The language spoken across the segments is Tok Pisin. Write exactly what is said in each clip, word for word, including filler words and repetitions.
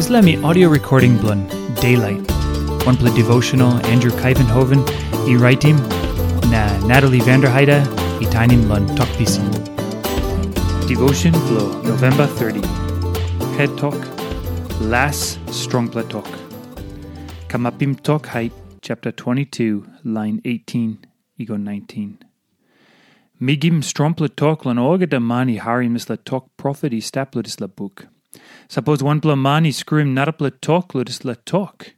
Dispela mi audio recording bilong Daylight, wanpela devotional Andrew Kaivenhoven i raitim, na Natalie Vanderheide i tainim long Tok Pisin. Devotion bilong November thirty. Het tok, las strongpela tok. Kamapim Tok Hait, chapter twenty-two, line eighteen i go nineteen. Mi givim strongpela tok long olgeta man i harim dispela tok profet i stap long dispela buk. Sapos wanpela man i skruim narapela tok long dispela tok,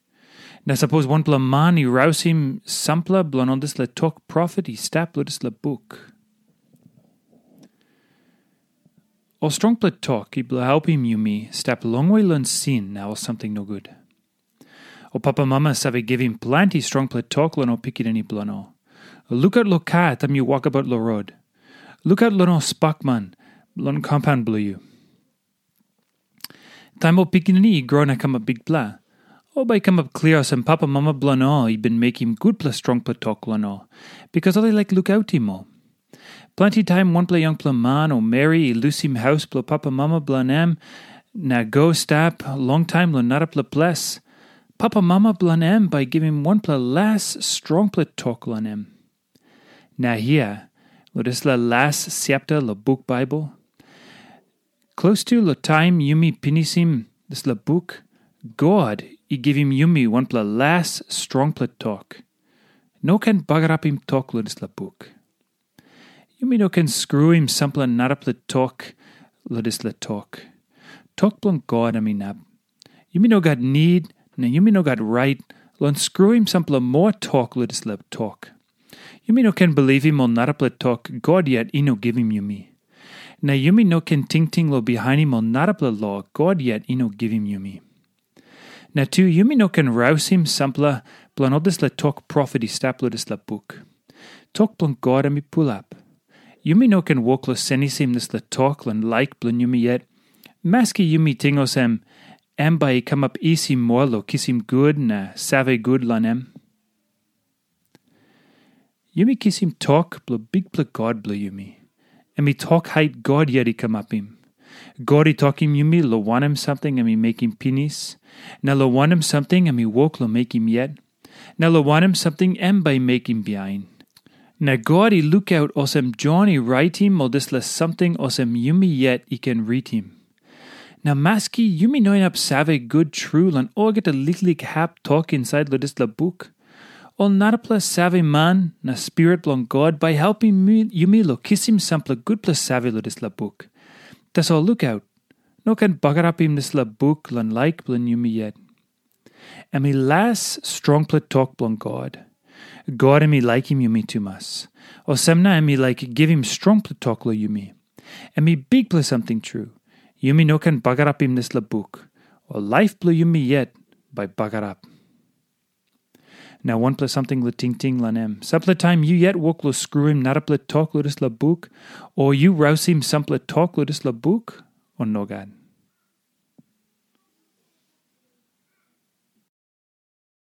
na sapos wanpela man i rausim sampela bilong ol dispela tok profet i stap long dispela buk. Ol strongpela tok i bilong helpim yumi stap longwe long sin na ol samting nogut. Ol papamama save givim planti strongpela tok long ol pikinini bilong ol. Lukaut long kar taim yu wokabaut long rot. Lukaut long ol spakman long kompaun bilong yu. Taim ol pikinini i gro na kamap bikpela, ol bai i kamap klia olsem papamama bilong ol i bin mekim gutpela strongpela tok long ol, bikas ol i laik lukautim ol. Planti taim wanpela yangpela man o meri i lusim haus bilong papamama bilong em na go stap longtaim long narapela ples, papamama bilong em bai i givim wanpela las strongpela tok long em. Na hia, long dispela las chapter long buk Baibel, klostu long taim yumi pinisim dispela buk, God i givim yumi wanpela las strongpela tok. No ken bagarapim tok long dispela buk. Yumi no ken skruim sampela narapela tok long dispela tok. Tok bilong God em inap. Yumi no gat nid, na yumi no gat rait long skruim sampela moa tok long dispela tok. Yumi no ken bilipim ol narapela tok God yet i no givim yumi. Na yumi no ken tingting long bihainim ol narapela lo God yet i no givim yumi. Na tu yumi no ken rausim sampela bilong ol dispela tok profet i stap long dispela buk. Tok bilong God em i pulap. Yumi no ken wok long senisim dispela tok long laik bilong yumi yet, maski yumi ting olsem, em bai i kamap isi moa long kisim gut na save gut long em. Yumi kisim tok bilong Bikpela God bilong yumi. Em i tok hait God yet i kamapim. God i tokim yumi long wanem samting em i mekim pinis, na long wanem samting em i wok long mekim yet, na long wanem samting em bai i mekim bihain. Na God i lukaut olsem Jon i raitim ol dispela samting olsem yumi yet i ken ritim. Na maski yumi no inap save gut tru long olgeta liklik hap tok insait long dispela buk, ol narapela save man na Spirit bilong God bai helpim mi- yumi long kisim sampela gutpela save long dispela buk. Tasol lukaut, no ken bagarapim dispela buk long laik bilong yumi yet. Em i las strongpela tok bilong God. God em i laikim yumi tumas. Olsem na em i laik givim strongpela tok long yumi. Em i bikpela samting tru. Yumi no ken bagarapim dispela buk, o laip bilong yumi yet bai bagarap. Na wanpela samting long tingting long em. Sampela taim yu yet wok long skruim narapela tok long dispela buk, o yu rausim sampela tok long dispela buk, o nogat?